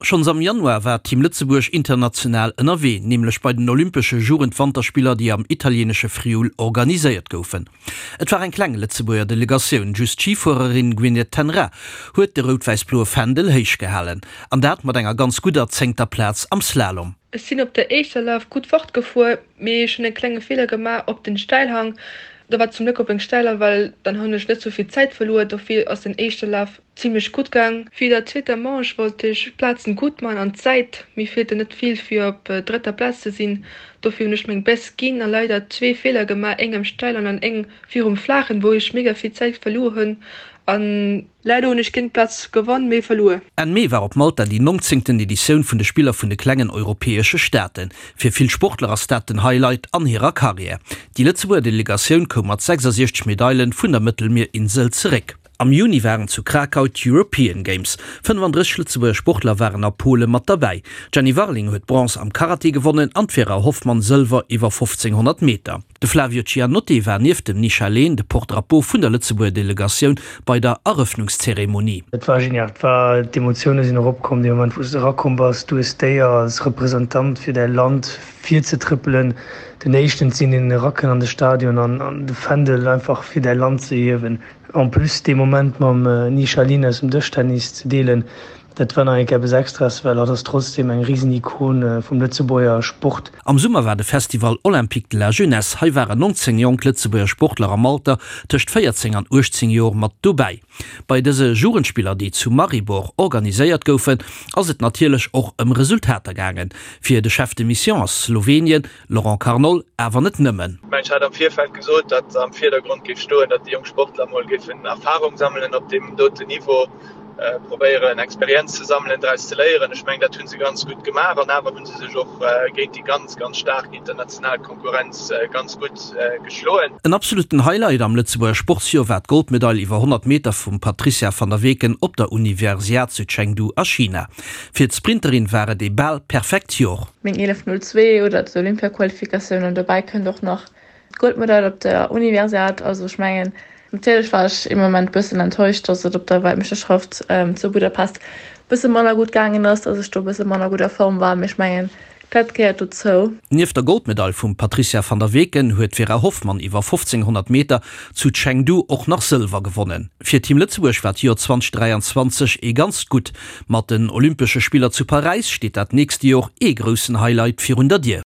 Schonns am Januar war Team Lëtzebuerg international ënnerwee, nämlech bei den Olympesche Jugendwanterspiller, déi am italieenesche Friul organiséiert goufen. Et war eng kleng Lëtzebuerger Delegatioun, just d'Schifuererin Gwyneth Ten Raa huet de rout-wäiss-bloe Fändel héich gehalen. An dat mat enger ganz gudder zéngter Plaz am Slalom. Ech sinn op der éischter Laf gutt fortgefuer, mee ech hunn e klenge Feeler gemaach op den Stäilhang. Do war zum Gléck op eng Stäiler, well dann hunn ech net sou vill Zäit verluer. Dofir ass den éischte Laf zimmlech gutt gaang. Fir der zweeter Manche wollt ech d'Plazen gutt man an d'Zäit, mir feelten net vill fir op drëtter Plaz ze sinn. Dofir hunn ech meng Best ginn a leider zwee Feeler gemaach, eng am Stäilen an eng virum Flaachen, wou ech mega vill Zäit verluer hunn an Leider hunn ech géint Platz gewonn, mee verluer. Enn Mee war op Malta déi nongzéngten Editioun vun de Spiller vun de klengen europäesche Staaten. Fir vill Sportler ass dat den Highlight an hirer Karriär. Déi Lëtzebuerger Delegatioun koum mat 66 Medaile vun der Mëttelmierinsel zeréck. Am Juni waren zu Krakau d'European Games. 35 Lëtzebuerger Sportler waren a Pole mat derbäi. D'Jenny Warling huet Bronze am Karate gewonnen an d'Vera Hoffmann Sëlwer iwwer 1500 Meter. De Flavio Cianotti war nieft dem Nisha Lehn de Porte-drapeau vun der Lëtzebuerger Delegatioun bei der Erëffnungszeremonie. Et war genial, et war, d'Emotioune sinn eropkomm dee Moment wou s de erakomm bass. Du hues d'Éier als Representant fir däi Land virzetrëppelen, den éischten ze sinn deen erakënnt an de Stadion an de Fändel einfach fir däi Land ze hiewen. En plus dee Moment mam Nisha Lin aus dem Dëschtennis ze deelen, Dat war nach eng Kéier eppes Extraes, well hatt ass trotzdem eng risen Ikon vum Lëtzebuerger Sport. Am Summer war de Festival Olympique de la Jeunesse. Hei waren 19 jonk Lëtzebuerger Sportler am Alter tëscht 14 an 18 Joer mat dobäi. Bei dëse Jugendspiller, déi zu Maribor organiséiert goufen, ass et natierlech och ëm Resultater gaangen. Fir de Chef de Mission ass Slowenien, Laurent Carnol, awer net nëmmen. Ech hat am Virfeld gesot, datt am Virdergrond géif stoen, datt déi jonk Sportler mol géifen Erfarung sammelen op deem doten Niveau. probéieren Experienz ze sammelen, draus ze léieren. Ech mengen dat hu se ganz gutt gemaach an awer hu se sech och géint déi ganz, ganz staark international Konkurrenz ganz gutt geschloen. En absolutten Highlight am Lëtzebuerger Sportsjoer war d'Goldmedail iwwer 100 Meter vum Patricia van der Weken op der Universiad zu Chengdu a China. Fir d'Sprinterin war et ee bal perfekt Jor. Meng 11:02 oder d'Olympiaqualifikatioun an dobäi kënnt och nach D'Goldmedail op der Universiad, also ech mengen, natierlech war ech ee Moment bëssen enttäuscht, dass et op der Weltmeeschterschaft zu Budapest bësse manner gutt gaangen ass, dass ech do bësse manner gutt a Form war, mee ech mengen, dat gehéiert dozou. Nieft der Goldmedail vum Patricia van der Weken huet d'Vera Hoffmann iwwer 1500 Meter zu Chengdu och nach Sëlwer gewonnen. Fir Team Lëtzebuerg war d'Joer 2023 ee ganzt gutt. Mat den Olympesche Spiller zu Paräis steet dat nächste Jor ee groussen Highlight virun der Dier.